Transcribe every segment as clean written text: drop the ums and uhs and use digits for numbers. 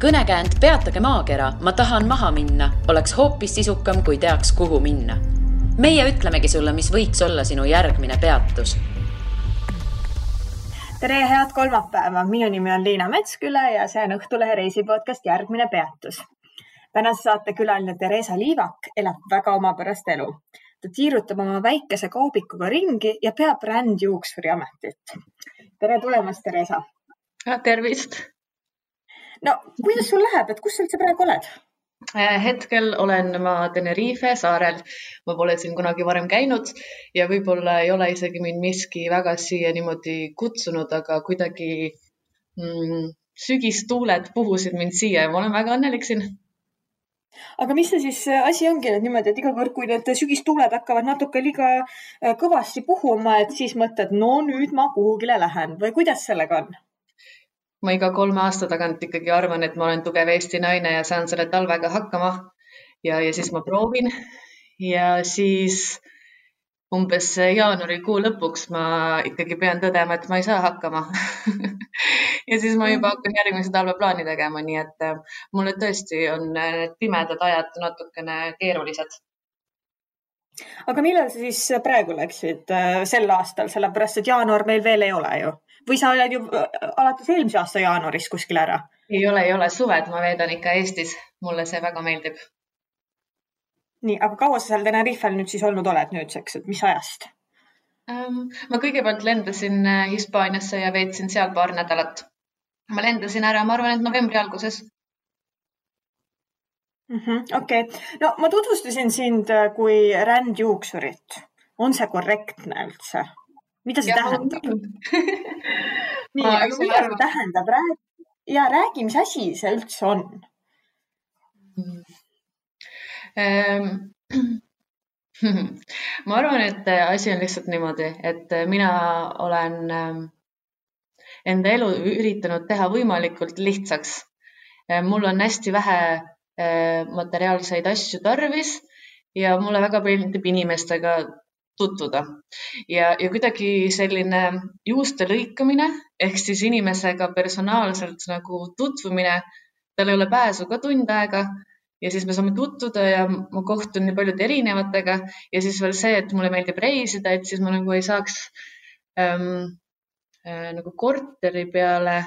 Kõnekäänd Peatage maakera, ma tahan maha minna, oleks hoopis sisukam, kui teaks, kuhu minna. Meie ütlemegi sulle, mis võiks olla sinu järgmine peatus. Tere, head kolmapäeva. Minu nimi on Liina Metsküla ja see on Õhtulehe reisipodcast Järgmine peatus. Tänase saate külaline Teresa Liivak elab väga omapärast elu. Ta tiirutab oma väikese kaubikuga ringi ja peab rändjuuksuri ametit. Tere tulemast, Teresa. Tervist. No, kuidas sul läheb, kus sa üldse praegu oled? Hetkel olen ma Tenerife saarel. Ma pole siin kunagi varem käinud ja võib-olla ei ole isegi mind miski väga siia niimoodi kutsunud, aga kuidagi sügistuuled puhusid mind siia ja ma olen väga õnnelik siin. Aga mis see siis asi ongi niimoodi, et iga kord, kui need sügistuuled hakkavad natuke liiga kõvasti puhuma, et siis mõtled, no nüüd ma kuhugile lähen või kuidas sellega on? Ma iga 3 aasta tagant ikkagi arvan, et ma olen tugev Eesti naine ja saan selle talvega hakkama ja siis ma proovin ja siis umbes jaanuarikuu lõpuks ma ikkagi pean tõdema, et ma ei saa hakkama ja siis ma juba hakkan järgmise talve plaani tegema, nii et mulle tõesti on pimedad ajad natukene keerulised. Aga millal sa siis praegu läksid sel aastal, sellepärast et jaanuar meil veel ei ole ju? Või sa oled ju alates eelmise aasta jaanuaris kuskil ära? Ei ole, suved ma veedan ikka Eestis. Mulle see väga meeldib. Nii, aga kaua sa seal Tenerifel nüüd siis olnud oled nüüdseks, et mis ajast? Ma kõigepealt lendasin Hispaaniasse ja veetsin seal paar nädalat. Ma lendasin ära, ma arvan, et novembri alguses. Okei. No ma tutvustasin sind kui rändjuuksurit. On see korrektne üldse? Mida see tähendab? Nii, aga mida see tähendab? Ja räägi, mis asi see üldse on? Ma arvan, et asi on lihtsalt niimoodi, et mina olen enda elu üritanud teha võimalikult lihtsaks. Mul on hästi vähe materiaalseid asju tarvis ja mulle väga meeldib inimestega tutvuda. Ja kuidagi selline juuste lõikamine, ehk siis inimesega personaalselt nagu tutvumine, tal ei ole pääsu ka tund aega ja siis me saame tutvuda ja ma kohtun nii paljude erinevatega ja siis veel see, et mulle meeldib reisida, et siis ma nagu ei saaks nagu korteri peale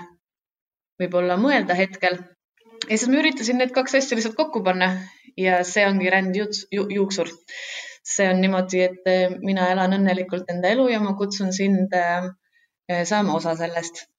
võib-olla mõelda hetkel. Ja siis ma üritasin need 2 asja lihtsalt kokku panna ja see ongi rändjuuksur. See on niimoodi, et mina elan õnnelikult enda elu ja ma kutsun sind saama osa sellest.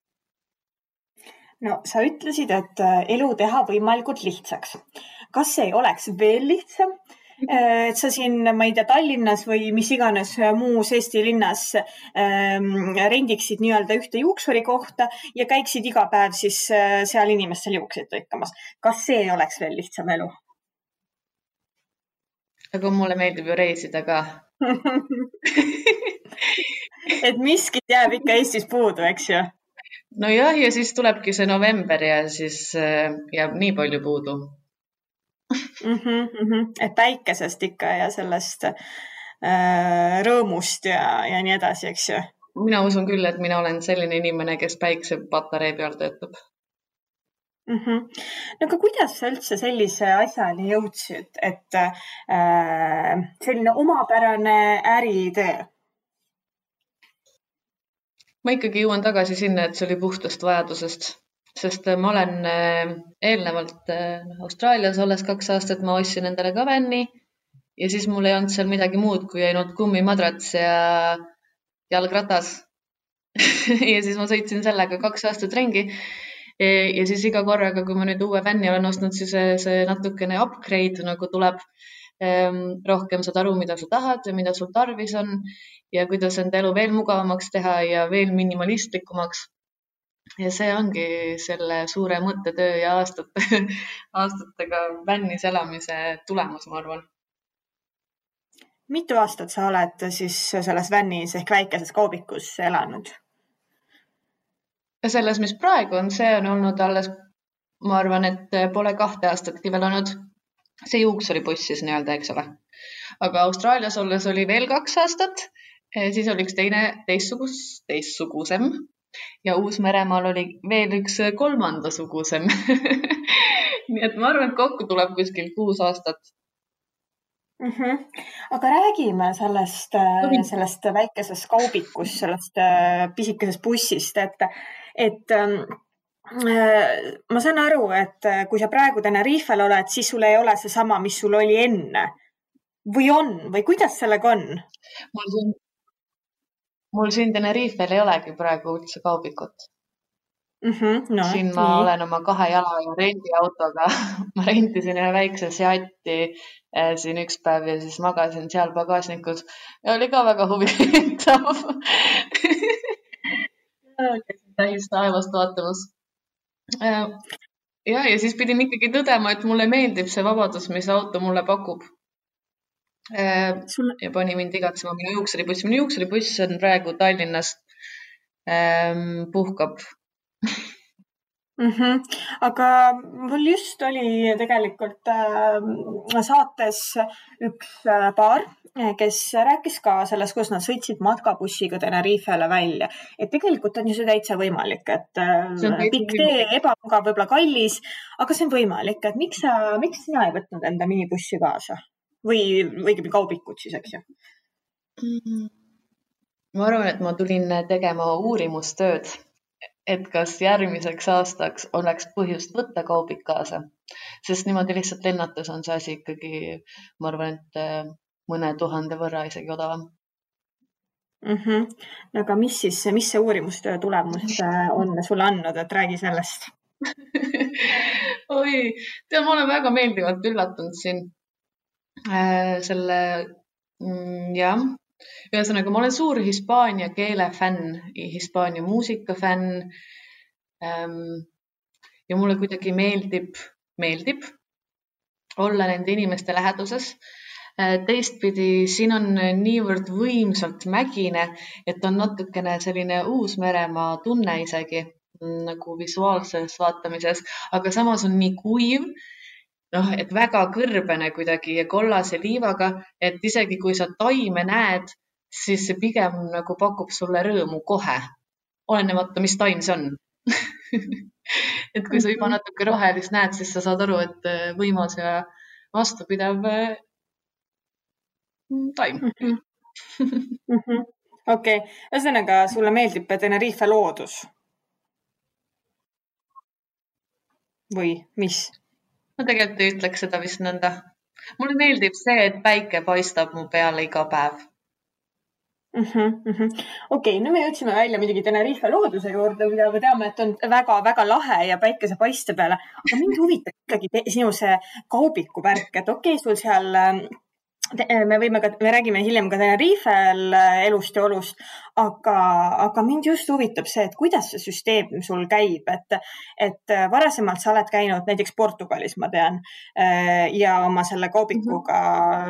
No, sa ütlesid, et elu teha võimalikult lihtsaks. Kas see ei oleks veel lihtsam? Et sa siin, ma ei tea, Tallinnas või mis iganes muus Eesti linnas rendiksid nii-öelda ühte juuksuri kohta ja käiksid iga päev siis seal inimestel juukseid lõikamas. Kas see ei oleks veel lihtsam elu? Aga mulle meeldib ju reisida ka. Et miskit jääb ikka Eestis puudu, eks ju? No jah, ja siis tulebki see november ja siis jääb nii palju puudu. Et päikesest ikka ja sellest rõõmust ja nii edasi, eks ju? Mina usun küll, et mina olen selline inimene, kes päikse pataree peal töötab. No aga kuidas sa üldse sellise asjani jõudsid, et selline omapärane äritöö? Ma ikkagi jõuan tagasi sinna, et see oli puhtast vajadusest, sest ma olen eelnevalt Austraalias olles 2 aastat, ma ostsin endale ka vänni ja siis mul ei olnud seal midagi muud, kui ainult kummimadrats ja jalgratas. Ja siis ma sõitsin sellega 2 aastat ringi. Ja siis iga korraga, kui ma nüüd uue vänni olen ostnud, siis see natukene upgrade nagu tuleb. Rohkem saad aru, mida sa tahad ja mida sul tarvis on ja kuidas enda elu veel mugavamaks teha ja veel minimalistlikumaks. Ja see ongi selle suure mõttetöö ja aastatega vännis elamise tulemus, ma arvan. Mitu aastat sa oled siis selles vännis ehk väikeses kaubikus elanud? Ja selles, mis praegu on, see on olnud alles, ma arvan, et pole 2 aastatki veel olnud see juuksuribuss siis nii-öelda, eks ole. Aga Austraalias olles oli veel 2 aastat, siis oli üks teistsugusem ja Uus-Meremaal oli veel üks 3. sugusem. nii et ma arvan, et kokku tuleb kuskil 6 aastat. Aga räägime sellest väikesest kaubikust, sellest pisikesest bussist, et ma saan aru, et kui sa praegu Tenerifel oled, siis sul ei ole see sama, mis sul oli enne. Või on? Või kuidas sellega on? Mul siin Tenerifel ei olegi praegu üldse kaubikut. No, siin ma olen oma 2 jala ja rendiautoga. Ma rentisin ühe väikse Seati siin üks päev ja siis magasin seal pagasnikus. Ja oli ka väga huvitav. Täis taevast vaatamas. Ja siis pidin ikkagi tõdema, et mulle meeldib see vabadus, mis auto mulle pakub. Ja pani mind igatsema minu juuksuribuss. Minu juuksuribuss on praegu Tallinnast puhkab. Aga mul just oli tegelikult saates üks paar, kes rääkis ka sellest, kuidas nad sõitsid matkabussiga Tenerifele välja. Et tegelikult on ju see täitsa võimalik, et pikk tee, ebamugav, võib-olla kallis, aga see on võimalik. Et miks sina ei võtnud enda minibussi kaasa? Või õigemini kaubikut siis, eks ju? Ma arvan, et ma tulin tegema uurimustööd, et kas järgmiseks aastaks oleks põhjust võtta kaubik kaasa. Sest niimoodi lihtsalt lennates on see asi ikkagi, ma arvan, et mõne 1000 võrra isegi odavam. Aga mis see uurimustöö tulemus on sulle andnud, et räägi sellest? Oi, ma olen väga meeldivalt üllatunud siin. Ühesõnaga, ma olen suur hispaania keele fänn, hispaania muusika fänn ja mulle kuidagi meeldib olla nende inimeste läheduses. Teistpidi, siin on niivõrd võimsalt mägine, et on natukene selline Uus-Meremaa tunne isegi nagu visuaalses vaatamises, aga samas on nii kuiv, et väga kõrbene kuidagi ja kollase liivaga, et isegi kui sa taime näed, siis see pigem nagu pakub sulle rõõmu kohe, olenemata, mis taim see on. Et kui sa juba natuke rohelist näed, siis sa saad aru, et võimas ja vastupidav taim. Okei, ühesõnaga sulle meeldib Tenerife loodus? Või mis? Ma tegelikult ei ütleks seda vist nõnda. Mulle meeldib see, et päike paistab mu peale iga päev. Okei, nüüd me jõudsime välja midagi Tenerife looduse juurde, mida me teame, et on väga-väga lahe ja päikese paiste peale. Aga mind huvitab ikkagi sinu see kaubiku värk, et okei, sul seal me räägime hiljem ka Tenerifel elust ja olust, aga mind just huvitab see, et kuidas see süsteem sul käib, et varasemalt sa oled käinud näiteks Portugalis, ma tean, ja oma selle kaubikuga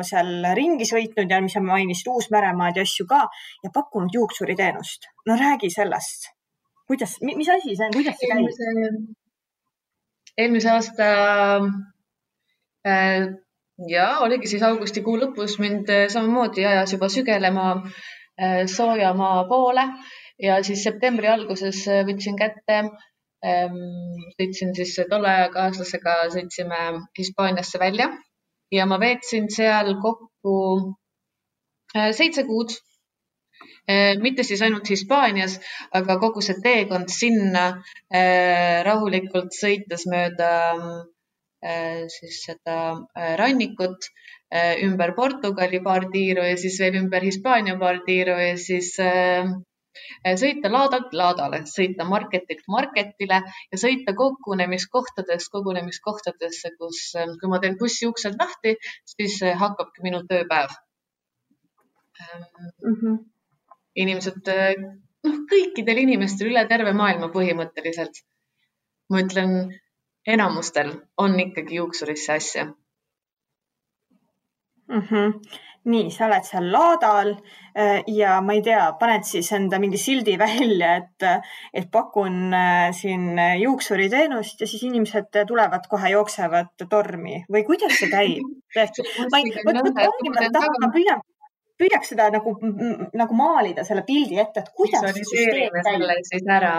seal ringi sõitnud ja mis sa mainisid Uus-Meremaad ja asju ka ja pakkunud juuksuriteenust. No räägi sellest. Mis asi see on? Kuidas see käib? Eelmise aasta oligi siis augustikuu lõpus mind samamoodi ajas juba sügelema soojamaa poole ja siis septembri alguses võtsin kätte, sõitsin siis tolle kaaslasega, sõitsime Hispaaniasse välja ja ma veetsin seal kokku 7 kuud. Mitte siis ainult Hispaanias, aga kogu see teekond sinna rahulikult sõites mööda siis seda rannikut ümber Portugali paar tiiru ja siis veel ümber Hispaania paar tiiru ja siis sõita laadalt laadale, sõita marketilt marketile ja sõita kogunemiskohtadesse, kus kui ma teen bussi uksed lahti, siis hakkabki minu tööpäev. Inimesed, kõikidel inimestel üle terve maailma põhimõtteliselt. Ma ütlen, enamustel on ikkagi juuksurisse asja. Nii, sa oled seal laadal ja ma ei tea, paned siis enda mingi sildi välja, et pakun siin juuksuriteenust ja siis inimesed tulevad kohe, jooksevad tormi või kuidas see käib? Püüaks seda nagu maalida selle pildi ette, et kuidas see süsteem käib.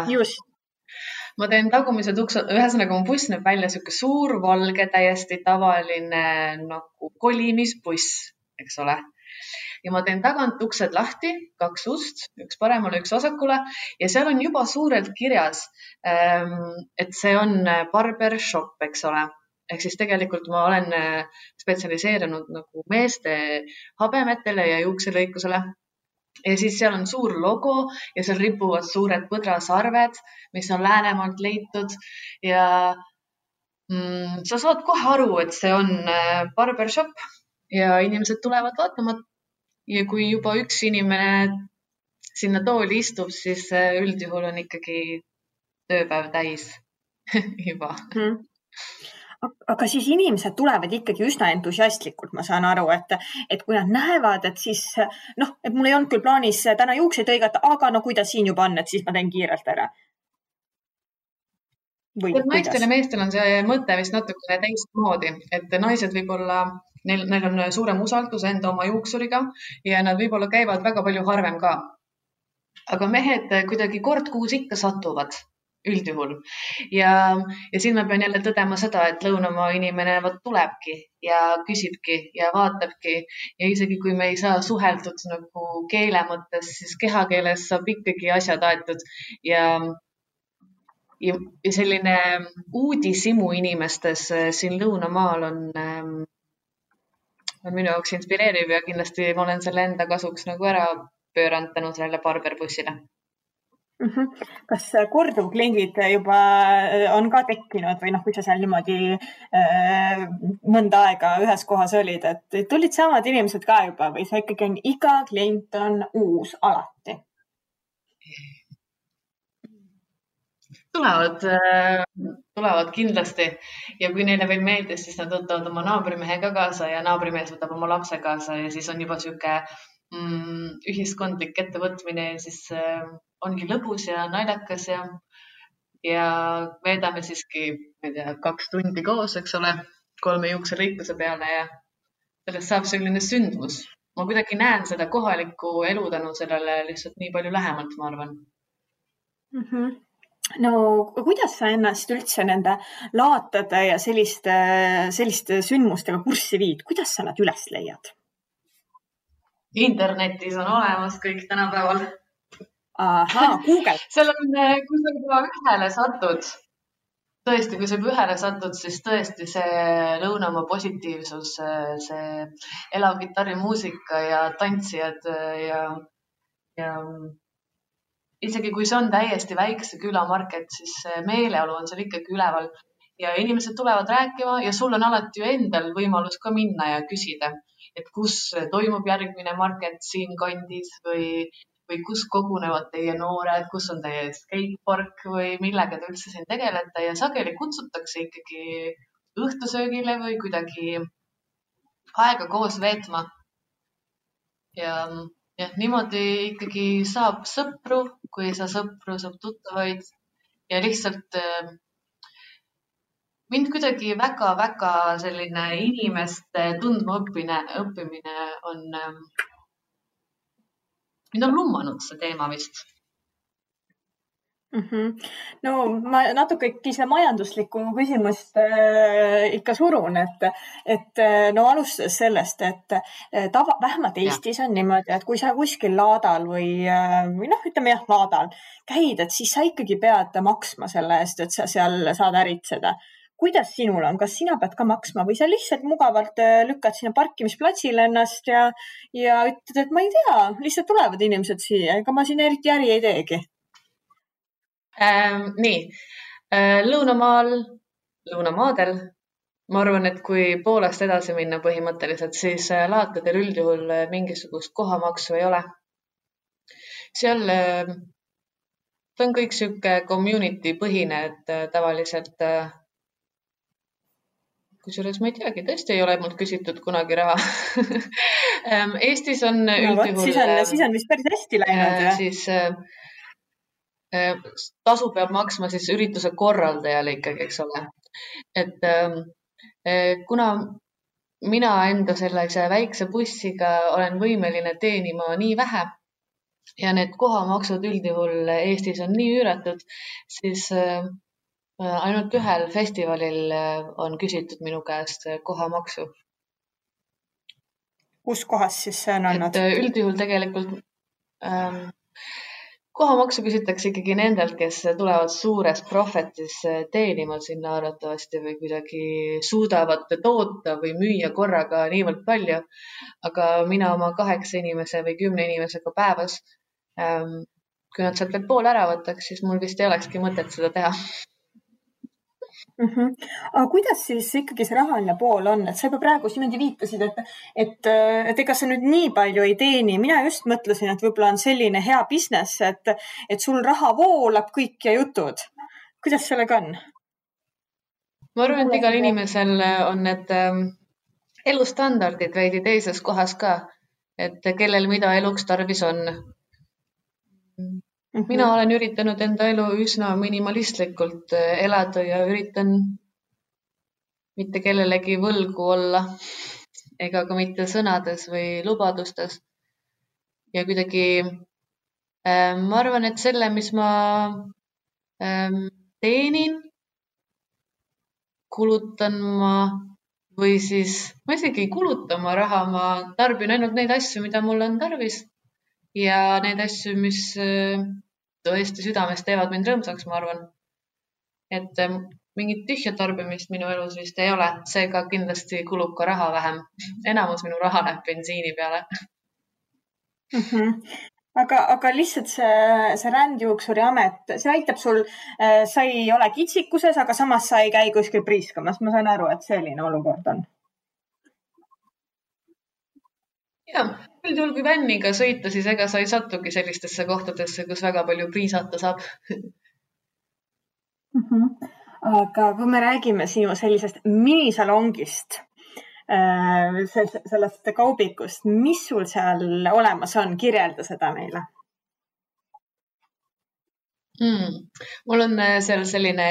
Just. ma teen tagumised uksed, ühesõnaga mu buss näeb välja siuke suur, valge, täiesti tavaline nagu kolimisbuss, eks ole. Ja ma teen tagant uksed lahti, 2 ust, üks paremale, üks vasakule ja seal on juba suurelt kirjas, et see on barbershop, eks ole. Ehk siis tegelikult ma olen spetsialiseerunud nagu meeste habemetele ja juukselõikusele. Ja siis seal on suur logo ja seal ripuvad suured põdrasarved, mis on Läänemaalt leitud ja sa saad kohe aru, et see on barbershop ja inimesed tulevad vaatama. Ja kui juba üks inimene sinna tooli istub, siis üldjuhul on ikkagi tööpäev täis juba. Aga siis inimesed tulevad ikkagi üsna entusiastlikult, ma saan aru, et kui nad näevad, et siis, et mul ei olnud küll plaanis täna juukseid õigata, aga kui ta siin juba on, et siis ma teen kiirelt ära. Naistel ja meestel on see mõte vist natukene teistmoodi, et naised võib-olla Neil on suurem usaldus enda oma juuksuriga ja nad võib-olla käivad väga palju harvem ka. Aga mehed kuidagi kord kuus ikka satuvad üldjuhul. Ja siin ma pean jälle tõdema seda, et lõunamaa inimene tulebki ja küsibki ja vaatabki. Ja isegi kui me ei saa suheldud nagu keele mõttes, siis kehakeeles saab ikkagi asjad aetud. Ja selline uudisimu inimestes siin lõunamaal on minu jaoks inspireeriv ja kindlasti ma olen selle enda kasuks nagu ära pööranud tänu sellele barberbussile. Kas korduvkliendid juba on ka tekkinud või kui sa seal niimoodi mõnda aega ühes kohas olid, et tulid samad inimesed ka juba või see ikkagi on iga klient on uus alati? Tulevad kindlasti ja kui neile veel meeldis, siis nad võtavad oma naabrimehe ka kaasa ja naabrimees võtab oma lapse kaasa ja siis on juba siuke ühiskondlik ettevõtmine ja siis ongi lõbus ja naljakas ja veedame siiski 2 tundi koos, eks ole, 3 juukselõikuse peale ja sellest saab selline sündmus. Ma kuidagi näen seda kohalikku elu tänu sellele lihtsalt nii palju lähemalt, ma arvan. No kuidas sa ennast üldse nende laatade ja selliste sündmustega kurssi viid? Kuidas sa nad üles leiad? Internetis on olemas kõik tänapäeval. Aha, Google. Seal on, kui sa juba ühele satud, tõesti, kui sa juba ühele satud, siis tõesti see lõunamaa positiivsus, see elav kitarrimuusika ja tantsijad ja isegi kui see on täiesti väikse külamarket, siis meeleolu on seal ikkagi üleval ja inimesed tulevad rääkima ja sul on alati ju endal võimalus ka minna ja küsida, et kus toimub järgmine market siin kandis või kus kogunevad teie noored, kus on teie skatepark või millega te üldse siin tegelete ja sageli kutsutakse ikkagi õhtusöögile või kuidagi aega koos veetma. Ja niimoodi ikkagi saab sõpru, kui ei saa sõpru, saab tuttavaid ja lihtsalt mind kuidagi väga-väga selline inimeste tundma õppimine on, mind on lummanud see teema vist. No ma natuke seda majanduslikku küsimust ikka surun, et alustades sellest, et vähemalt Eestis on niimoodi, et kui sa kuskil laadal või ütleme laadal käid, et siis sa ikkagi pead maksma selle eest, et sa seal saad äritseda. Kuidas sinul on? Kas sina pead ka maksma või sa lihtsalt mugavalt lükkad sinna parkimisplatsile ennast ja ütled, et ma ei tea, lihtsalt tulevad inimesed siia, ega ma siin eriti äri ei teegi? Nii, lõunamaadel, ma arvan, et kui Poolast edasi minna põhimõtteliselt, siis laatadel üldjuhul mingisugust kohamaksu ei ole. Seal on kõik siuke community põhine, et tavaliselt, kusjuures ma ei teagi, tõesti ei ole mult küsitud kunagi raha. Eestis on üldjuhul... Siis on vist päris hästi läinud. Siis... tasu peab maksma siis ürituse korraldajale ikkagi, eks ole. Et kuna mina enda sellise väikse bussiga olen võimeline teenima nii vähe ja need kohamaksud üldjuhul Eestis on nii üüratud, siis Ainult ühel festivalil on küsitud minu käest kohamaksu. Kus kohas siis see on olnud? Et üldjuhul tegelikult kohamaksu küsitakse ikkagi nendelt, kes tulevad suures profetis teenima sinna arvatavasti või kuidagi suudavad toota või müüa korraga niivõrd palju. Aga mina oma 8 inimese või 10 inimesega päevas, kui nad sealt veel pool ära võtaks, siis mul vist ei olekski mõtet seda teha. Aga kuidas siis ikkagi see rahaline pool on? Et sa juba praegu niimoodi viitasid, et ega sa nüüd nii palju ei teeni. Mina just mõtlesin, et võib-olla on selline hea business, et sul raha voolab kõik ja jutud. Kuidas sellega on? Ma arvan, et igal inimesel on need elustandardid veidi teises kohas ka, et kellel mida eluks tarvis on. Mina olen üritanud enda elu üsna minimalistlikult elada ja üritan mitte kellelegi võlgu olla ega ka mitte sõnades või lubadustes. Ja kuidagi ma arvan, et selle, mis ma teenin, kulutan ma või siis ma isegi ei kuluta oma raha, ma tarbin ainult neid asju, mida mul on tarvis ja neid asju, mis tõesti südames teevad mind rõõmsaks, ma arvan. Et mingit tühja tarbimist minu elus vist ei ole, seega kindlasti kulub ka raha vähem. Enamus minu raha läheb bensiini peale. Aga lihtsalt see rändjuuksuri amet, see aitab sul, sa ei ole kitsikuses, aga samas sa ei käi kuskil priiskamas. Ma saan aru, et selline olukord on. Jah, üldjuhul kui vänniga sõita, siis ega sa ei satugi sellistesse kohtadesse, kus väga palju priisata saab. Aga kui me räägime sinu sellisest minisalongist, sellest kaubikust, mis sul seal olemas on? Kirjelda seda meile. Mul on seal selline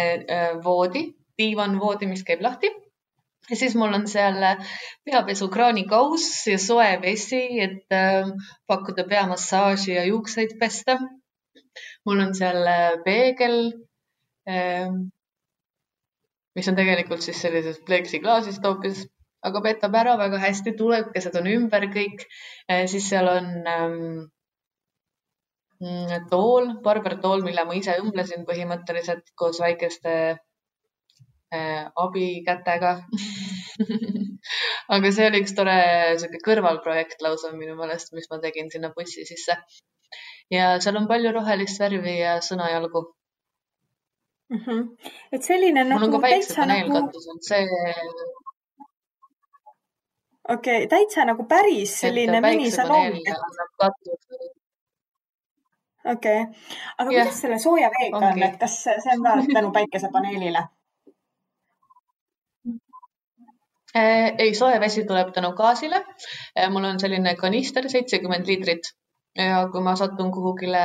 voodi, diivanvoodi, mis käib lahti. Ja siis mul on seal peapesukraanikaus ja soe vesi, et pakkuda peamassaaži ja juukseid pesta. Mul on seal peegel, mis on tegelikult siis sellises pleksiklaasist hoopis, aga petab ära väga hästi, tulekesed on ümber kõik. Siis seal on tool, barbertool, mille ma ise õmblesin põhimõtteliselt koos väikeste abikätega. Aga see oli üks tore kõrvalprojekt lausa minu meelest, mis ma tegin sinna bussi sisse. Ja seal on palju rohelist värvi ja sõnajalgu. Et selline mul on ka päiksepaneelkatus, see... Okei, täitsa nagu päris selline minisalong. Okei. Aga kuidas selle sooja veega on, et kas see on ka tänu päikesepaneelile? Ei, sooja vesi tuleb tänu gaasile. Mul on selline kanister 70 liitrit ja kui ma satun kuhugile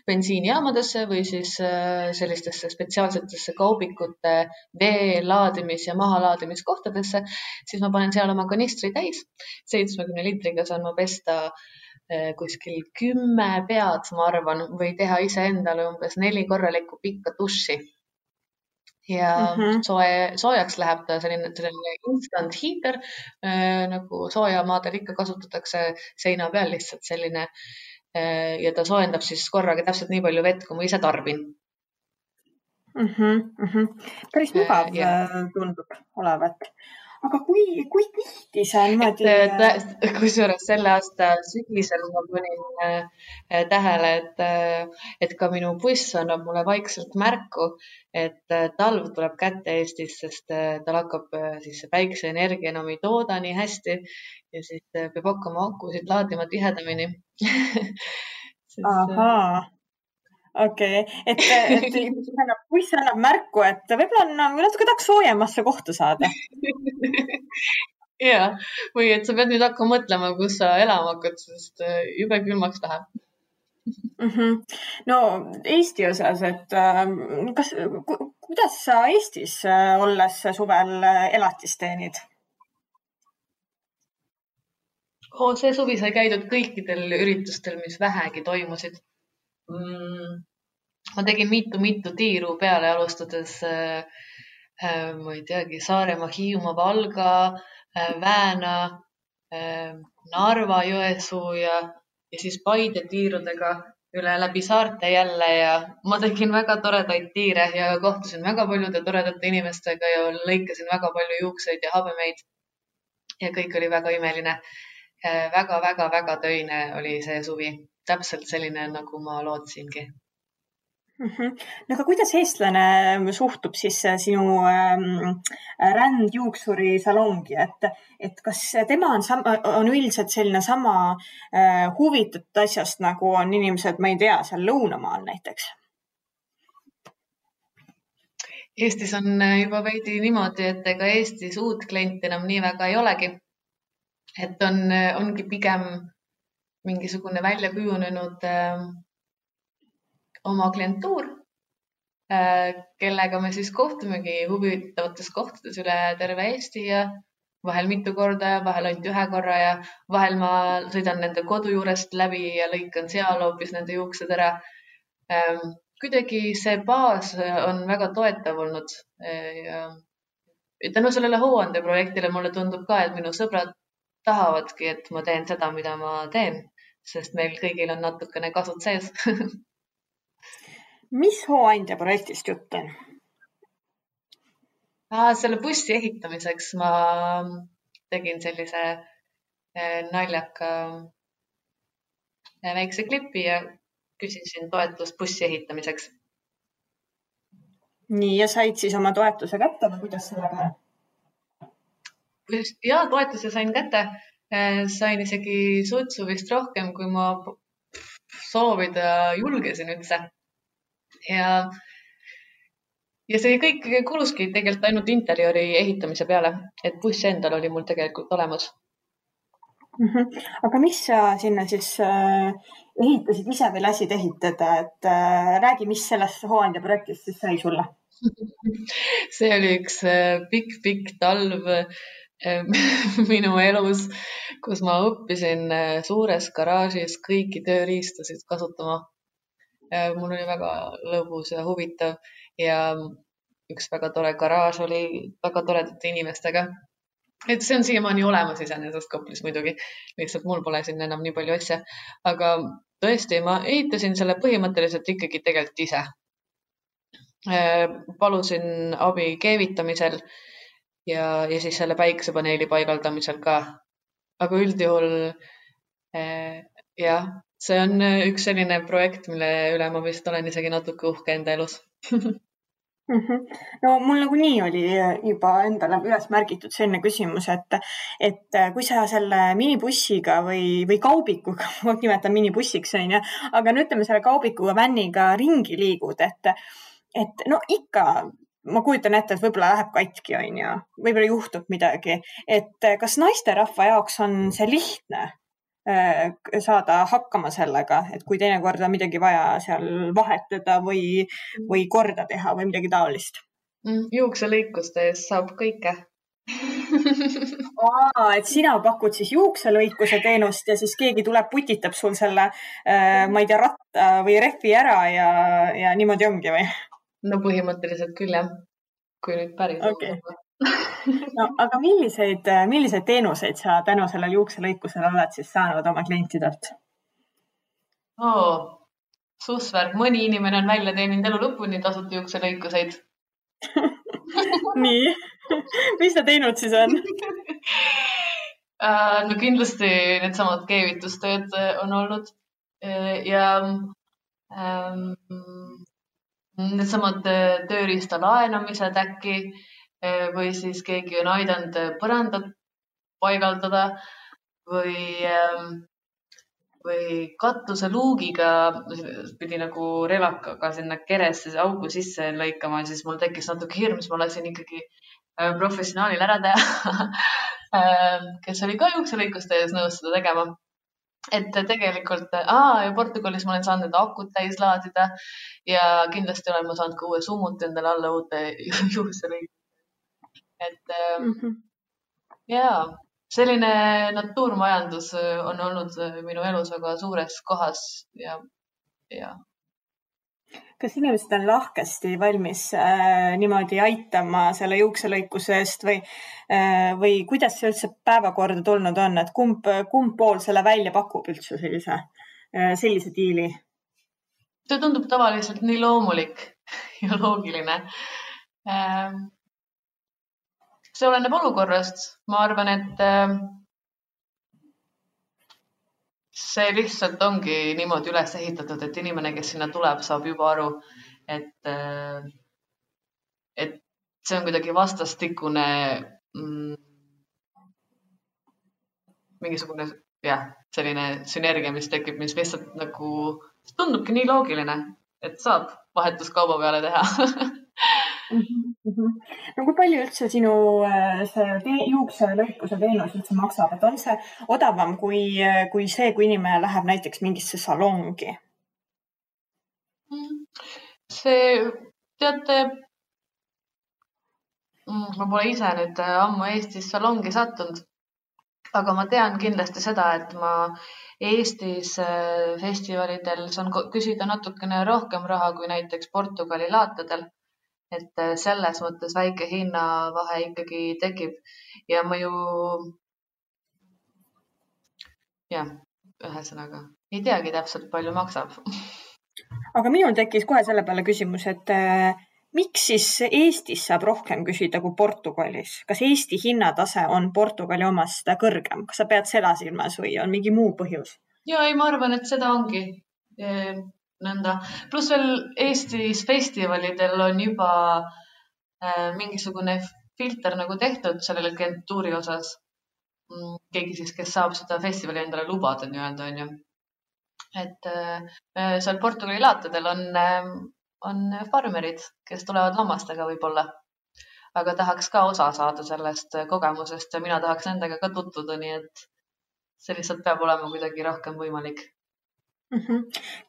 bensiinijaamadesse või siis sellistesse spetsiaalsetesse kaubikute vee laadimis- ja mahalaadimiskohtadesse, siis ma panen seal oma kanistri täis. 70 liitriga saan ma pesta kuskil 10 pead, ma arvan, või teha ise endale umbes 4 korralikku pikka duši. Ja soojaks läheb ta selline instant heater, nagu soojamaadel ikka kasutatakse seina peal lihtsalt selline ja ta soojendab siis korraga täpselt nii palju vett, kui ma ise tarbin. Päris mugav tundub olevat. Aga kui tihti see on niimoodi... Kusjuures selle aasta sügisel ma panin tähele, et ka minu buss annab mulle vaikselt märku, et talv tuleb kätte Eestis, sest tal hakkab siis päikseenergia enam ei tooda nii hästi ja siis peab hakkama akusid laadima tihedamini. Ahaa. Okei, et buss annab märku, et võib-olla on natuke tahaks soojemasse kohta saada. Ja, või et sa pead nüüd hakkama mõtlema, kus sa elama hakkad, sest jube külmaks läheb. No Eesti osas, et kuidas sa Eestis olles suvel elatist teenid? See suvi sai käidud kõikidel üritustel, mis vähegi toimusid. ma tegin mitu tiiru peale, alustades ma ei teagi, Saaremaa, Hiiumaa, Valga, Vääna, Narva, Jõesuu ja siis Paide tiirudega üle läbi saarte jälle ja ma tegin väga toredaid tiire ja kohtusin väga paljude toredate inimestega ja lõikasin väga palju juukseid ja habemeid ja kõik oli väga imeline. Väga töine oli see suvi. Täpselt selline, nagu ma lootsingi. No aga kuidas eestlane suhtub siis sinu rändjuuksuri salongi, et kas tema on üldiselt selline sama huvitatud asjast, nagu on inimesed, ma ei tea, seal lõunamaal näiteks? Eestis on juba veidi niimoodi, et ega Eestis uut klienti enam nii väga ei olegi. Et ongi pigem mingisugune välja kujunenud oma klientuur, kellega me siis kohtumegi huvitavates kohtades üle terve Eesti ja vahel mitu korda ja vahel ainult ühe korra ja vahel ma sõidan nende kodu juurest läbi ja lõikan seal hoopis nende juuksed ära. Kuidagi see baas on väga toetav olnud. Tänu sellele hooande projektile mulle tundub ka, et minu sõbrad tahavadki, et ma teen seda, mida ma teen, sest meil kõigil on natukene kasud sees. Mis hooandja projektist jutt on? Selle bussi ehitamiseks ma tegin sellise naljaka väikse klipi ja küsisin toetust bussi ehitamiseks. Nii, ja said siis oma toetuse kätte või kuidas sellega? Ja toetuse sain kätte. Sain isegi sutsu vist rohkem, kui ma soovida julgesin üldse. Ja see kõik kuluski tegelikult ainult interiori ehitamise peale, et buss endal oli mul tegelikult olemas. Aga mis sa sinna siis ehitasid ise või lasid ehitada, et räägi, mis sellest hooandja projektist siis sai sulle? See oli üks pikk talv minu elus, kus ma õppisin suures garaažis kõiki tööriistasid kasutama. Mul oli väga lõbus ja huvitav ja üks väga tore garaaž oli väga toredate inimestega. Et see on siiamaani olemas iseenesest Koplis muidugi. Lihtsalt mul pole siin enam nii palju asja. Aga tõesti, ma ehitasin selle põhimõtteliselt ikkagi tegelikult ise. Palusin abi keevitamisel ja siis selle päikesepaneeli paigaldamisel ka. Aga üldjuhul jah, see on üks selline projekt, mille üle ma vist olen isegi natuke uhke enda elus. No mul nagunii oli juba endale üles märgitud selline küsimus, et kui sa selle minibussiga või kaubikuga, ma nimetan minibussiks, aga no ütleme selle kaubikuga, vänniga ringi liigud, et no ikka ma kujutan ette, et võib-olla läheb katki, võib-olla juhtub midagi, et kas naisterahva jaoks on see lihtne saada hakkama sellega, et kui teinekord on midagi vaja seal vahetada või korda teha või midagi taolist? Juukselõikuste eest saab kõike. Et sina pakud siis juukselõikuse teenust ja siis keegi tuleb, putitab sul selle, ma ei tea, ratta või rehvi ära ja niimoodi ongi või? No põhimõtteliselt küll jah, kui nüüd päris okay. No, aga milliseid teenuseid sa tänu sellele juukselõikusele oled siis saanud oma klientidelt? Sussvärk, mõni inimene on välja teeninud elu lõpuni tasuta juukselõikuseid. Nii, mis ta teinud siis on? No kindlasti needsamad keevitustööd on olnud ja needsamad tööriista laenamised äkki või siis keegi on aidanud põrandat paigaldada või katuse luugiga pidi nagu relakaga sinna keresse augu sisse lõikama, siis mul tekkis natuke hirm, siis ma lasin ikkagi professionaalil ära teha, kes oli ka juukselõikuste ees nõus seda tegema. Et tegelikult, ja Portugalis ma olen saanud akut täis laadida ja kindlasti olen ma saanud ka uue summut endale alla uute juukselõikuste. Et jaa, selline natuurmajandus on olnud minu elus väga suures kohas ja. Kas inimesed on lahkesti valmis niimoodi aitama selle juukselõikuse eest või kuidas see üldse päevakorda tulnud on, et kumb pool selle välja pakub üldse sellise diili? See tundub tavaliselt nii loomulik ja loogiline. See oleneb olukorrast. Ma arvan, et see lihtsalt ongi niimoodi üles ehitatud, et inimene, kes sinna tuleb, saab juba aru, et see on kuidagi vastastikune mingisugune selline sünergia, mis tekib, mis lihtsalt nagu tundubki nii loogiline, et saab vahetuskauba peale teha. No kui palju üldse sinu see juukselõikuse teenus üldse maksab, et on see odavam kui see, kui inimene läheb näiteks mingisse salongi? Teate, ma pole ise nüüd ammu Eestis salongi sattunud, aga ma tean kindlasti seda, et ma Eestis festivalidel saan küsida natukene rohkem raha kui näiteks Portugali laatadel. Et selles mõttes väike hinnavahe ikkagi tekib ja ma ju, ühesõnaga, ei teagi täpselt palju maksab. Aga minul tekkis kohe selle peale küsimus, et miks siis Eestis saab rohkem küsida kui Portugalis? Kas Eesti hinnatase on Portugali omast kõrgem? Kas sa pead seda silmas või on mingi muu põhjus? Ei, ma arvan, et seda ongi nõnda. Plus veel Eestis festivalidel on juba mingisugune filter nagu tehtud sellele klientuuri osas. Keegi siis, kes saab seda festivali endale lubada nii-öelda, on ju. Et seal Portugali laatadel on farmerid, kes tulevad lammastega võib-olla, aga tahaks ka osa saada sellest kogemusest ja mina tahaks nendega ka tutvuda, nii et see lihtsalt peab olema kuidagi rohkem võimalik.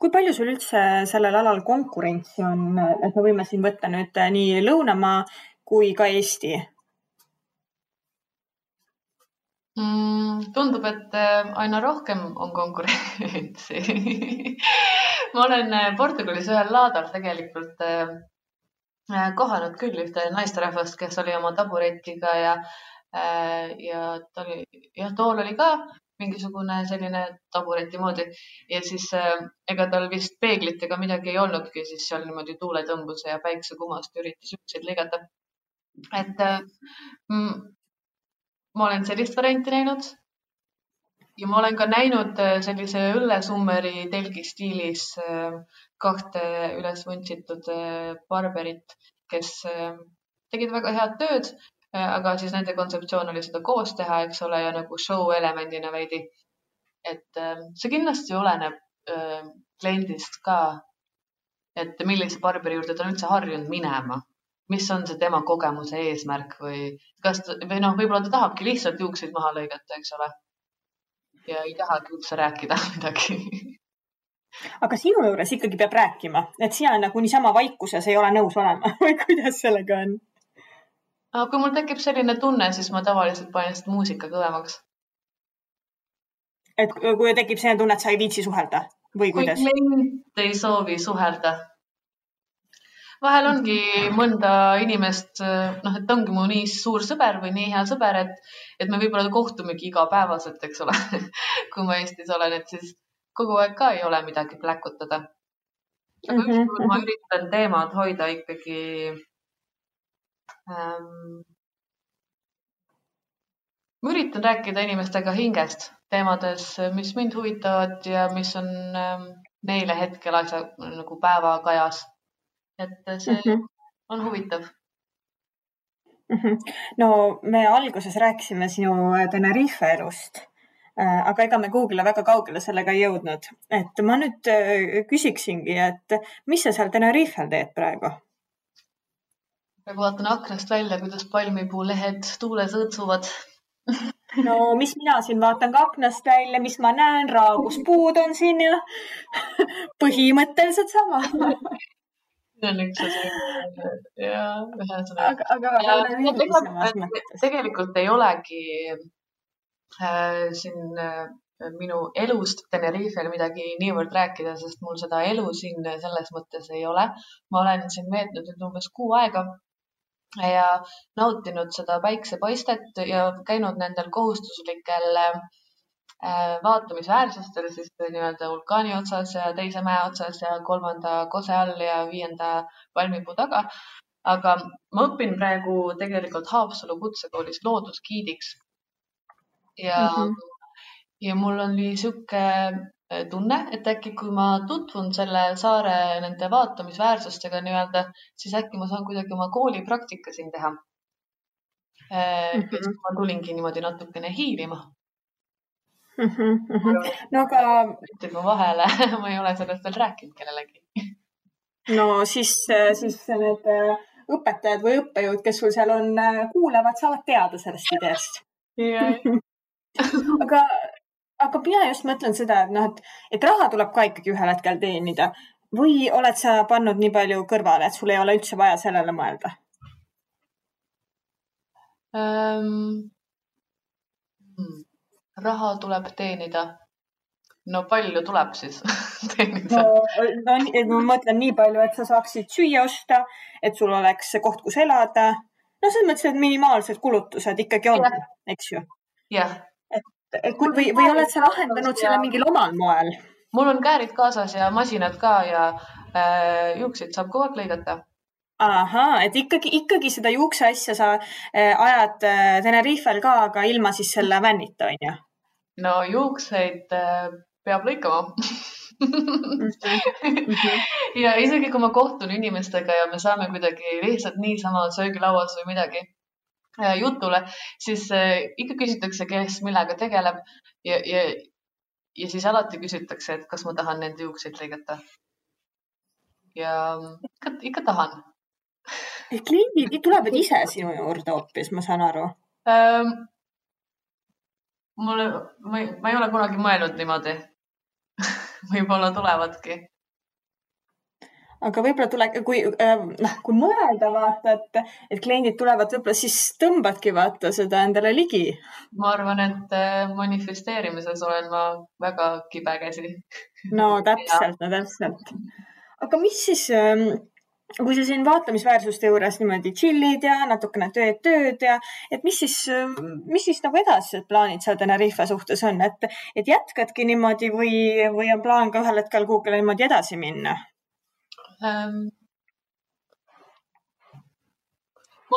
Kui palju sul üldse sellel alal konkurentsi on, et me võime siin võtta nüüd nii Lõunamaa kui ka Eesti? Tundub, et aina rohkem on konkurentsi. Ma olen Portugalis ühel laadal tegelikult kohanud küll ühte naisterahvast, kes oli oma taburetiga ja tool oli ka mingisugune selline tabureti moodi ja siis ega tal vist peeglit ega midagi ei olnudki, siis seal niimoodi tuuletõmbuse ja päiksekumast üritas juukseid lõigata. Et ma olen sellist varianti näinud ja ma olen ka näinud sellise õllesummeri telgi stiilis kahte üles vuntsitud barberit, kes tegid väga head tööd, aga siis nende kontseptsioon oli seda koos teha, eks ole, ja nagu show elemendina veidi. Et see kindlasti oleneb kliendist ka, et millise barberi juurde ta on üldse harjunud minema, mis on see tema kogemuse eesmärk või võib-olla ta tahabki lihtsalt juukseid maha lõigata, eks ole, ja ei tahagi üldse rääkida midagi. Aga sinu juures ikkagi peab rääkima, et sina nagu niisama vaikuses ei ole nõus olema või kuidas sellega on? Kui mul tekib selline tunne, siis ma tavaliselt panen seda muusika kõvemaks. Et kui tekib selline tunne, et sa ei viitsi suhelda või kuidas? Kui klient ei soovi suhelda. Vahel ongi mõnda inimest, et ongi mu nii suur sõber või nii hea sõber, et me võib-olla kohtumegi igapäevaselt, eks ole, kui ma Eestis olen, et siis kogu aeg ka ei ole midagi pläkutada. Aga ükskord ma üritan teemad hoida ikkagi ma üritan rääkida inimestega hingest teemades, mis mind huvitavad ja mis on neile hetkel asja nagu päevakajas. Et see on huvitav. No me alguses rääkisime sinu Tenerife elust, aga ega me kuhugile väga kaugele sellega ei jõudnud. Et ma nüüd küsiksingi, et mis sa seal Tenerifel teed praegu? Praegu vaatan aknast välja, kuidas palmipuulehed tuules õõtsuvad. No mis mina siin vaatan ka aknast välja, mis ma näen, raaguspuud on siin ja põhimõtteliselt sama. See on üks ühesõnaga. Tegelikult ei olegi siin minu elust Tenerifel midagi niivõrd rääkida, sest mul seda elu siin selles mõttes ei ole. Ma olen siin veetnud nüüd umbes 6 aega ja nautinud seda päiksepaistet ja käinud nendel kohustuslikel vaatamisväärsustel siis nii-öelda vulkaani otsas ja teise mäe otsas ja 3. kose all ja 5. palmipuu taga. Aga ma õpin praegu tegelikult Haapsalu kutsekoolis loodusgiidiks. Ja mul on siuke tunne, et äkki kui ma tutvun selle saare nende vaatamisväärsustega nii-öelda, siis äkki ma saan kuidagi oma koolipraktika siin teha. Ma tulingi niimoodi natukene hiilima. No aga ma vahele, ma ei ole sellest veel rääkinud kellelegi. No siis need õpetajad või õppejõud, kes sul seal on, kuulavad, saavad teada sellest ideest. Aga mina just mõtlen seda, et raha tuleb ka ikkagi ühel hetkel teenida. Või oled sa pannud nii palju kõrvale, et sul ei ole üldse vaja sellele mõelda? Raha tuleb teenida. No palju tuleb siis teenida? No ma mõtlen nii palju, et sa saaksid süüa osta, et sul oleks koht, kus elada. No selles mõttes, et minimaalsed kulutused ikkagi on, eks ju? Jah. Või oled sa lahendanud selle mingil omal moel? Mul on käärid kaasas ja masinad ka ja juukseid saab kogu aeg lõigata. Ahaa, et ikkagi seda juukse asja sa ajad Tenerifel ka, aga ilma siis selle vännita, on ju? No juukseid peab lõikama. Ja isegi kui ma kohtun inimestega ja me saame kuidagi lihtsalt niisama söögilauas või midagi jutule, siis ikka küsitakse, kes millega tegeleb ja siis alati küsitakse, et kas ma tahan nende juukseid lõigata. Ja ikka tahan. Kliendid tulevad ise sinu juurde hoopis, ma saan aru. Ma ei ole kunagi mõelnud niimoodi. Võib-olla tulevadki. Aga võib-olla kui mõelda vaata, et kliendid tulevad, võib-olla siis tõmbadki vaata seda endale ligi. Ma arvan, et manifesteerimises olen ma väga kibe käsi. No täpselt. Aga mis siis, kui sa siin vaatamisväärsuste juures niimoodi chillid ja natukene tööd ja, et mis siis nagu edasised plaanid seal Tenerife suhtes on, et jätkadki niimoodi või on plaan ka ühel hetkel kuhugile niimoodi edasi minna? Ma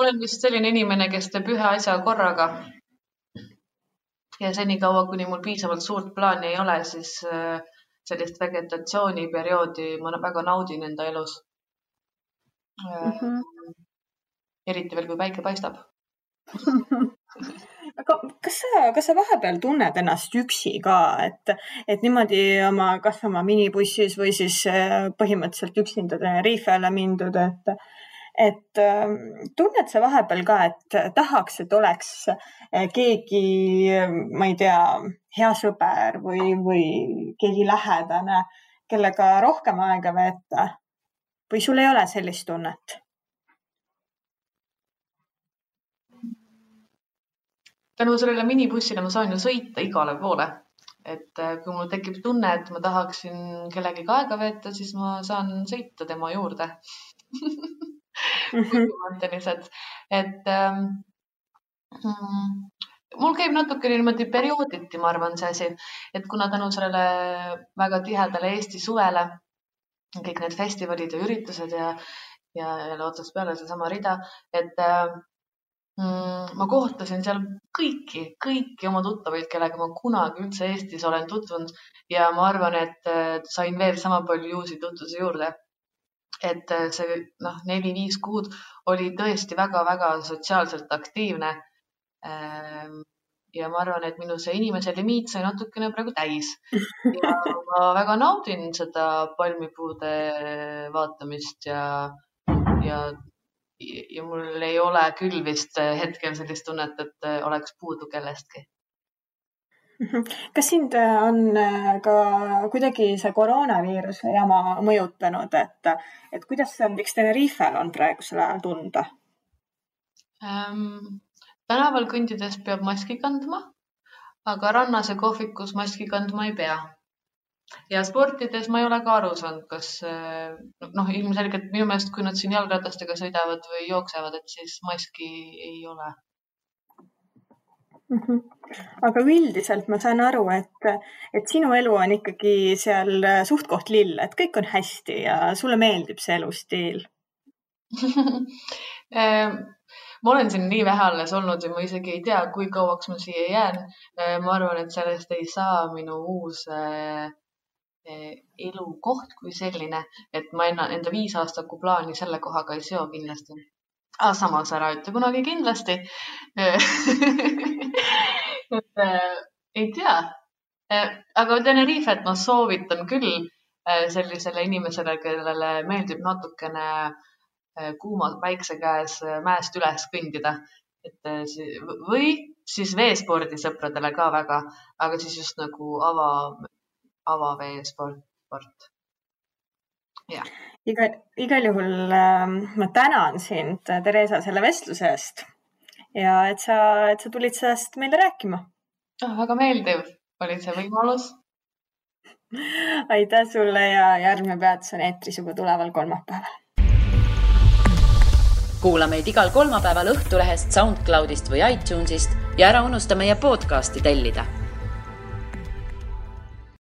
olen vist selline inimene, kes teeb ühe asja korraga ja senikaua, kuni mul piisavalt suurt plaani ei ole, siis sellist vegetatsiooniperioodi ma väga naudin enda elus. Eriti veel, kui päike paistab. Aga kas sa vahepeal tunned ennast üksi ka, et niimoodi kas oma minibussis või siis põhimõtteliselt üksinda Tenerifele mindud, et tunned sa vahepeal ka, et tahaks, et oleks keegi, ma ei tea, hea sõber või keegi lähedane, kellega rohkem aega veeta või sul ei ole sellist tunnet? Tänu sellele minibussile ma saan ju sõita igale poole. Et kui mul tekib tunne, et ma tahaksin kellegi aega veeta, siis ma saan sõita tema juurde. Et mul käib natuke niimoodi periooditi, ma arvan, see asi. Et kuna tänu sellele väga tihedale Eesti suvele, kõik need festivalid ja üritused ja jälle otsast peale see sama rida, et ma kohtasin seal kõiki oma tuttavaid, kellega ma kunagi üldse Eestis olen tutvunud ja ma arvan, et sain veel sama palju uusi tutvuse juurde. Et see 4-5 kuud oli tõesti väga-väga sotsiaalselt aktiivne ja ma arvan, et minu see inimese limiit sai natukene praegu täis ja ma väga naudin seda palmipuude vaatamist ja mul ei ole küll vist hetkel sellist tunnet, et oleks puudu kellestki. Kas sind on ka kuidagi see koroonaviiruse jama mõjutanud, et kuidas näiteks Tenerifel on praegusel ajal tunda? Tänaval kõndides peab maski kandma, aga rannas ja kohvikus maski kandma ei pea. Ja sportides ma ei ole ka aru saanud, kas ilmselgelt minu meelest, kui nad siin jalgratastega sõidavad või jooksevad, et siis maski ei ole. Aga üldiselt ma saan aru, et sinu elu on ikkagi seal suht koht lill, et kõik on hästi ja sulle meeldib see elustiil. Ma olen siin nii vähe alles olnud ja ma isegi ei tea, kui kauaks ma siia jään. Ma arvan, et sellest ei saa minu uus elukoht kui selline, et ma enda 5 aastaku plaani selle kohaga ei seo kindlasti. Samas ära ütle kunagi kindlasti. Ei tea. Aga Tenerifet ma soovitan küll sellisele inimesele, kellele meeldib natukene kuuma päikse käes mäest üles kõndida. Või siis veespordisõpradele ka väga, aga siis just nagu avaveesport. Ja. Igal juhul ma tänan sind, Teresa, selle vestluse eest ja et sa tulid sellest meile rääkima. Väga meeldiv oli see võimalus. Aitäh sulle ja järgmine peatus on eetris juba tuleval kolmapäeval. Kuula meid igal kolmapäeval Õhtulehest, SoundCloudist või iTunesist ja ära unusta meie podcasti tellida.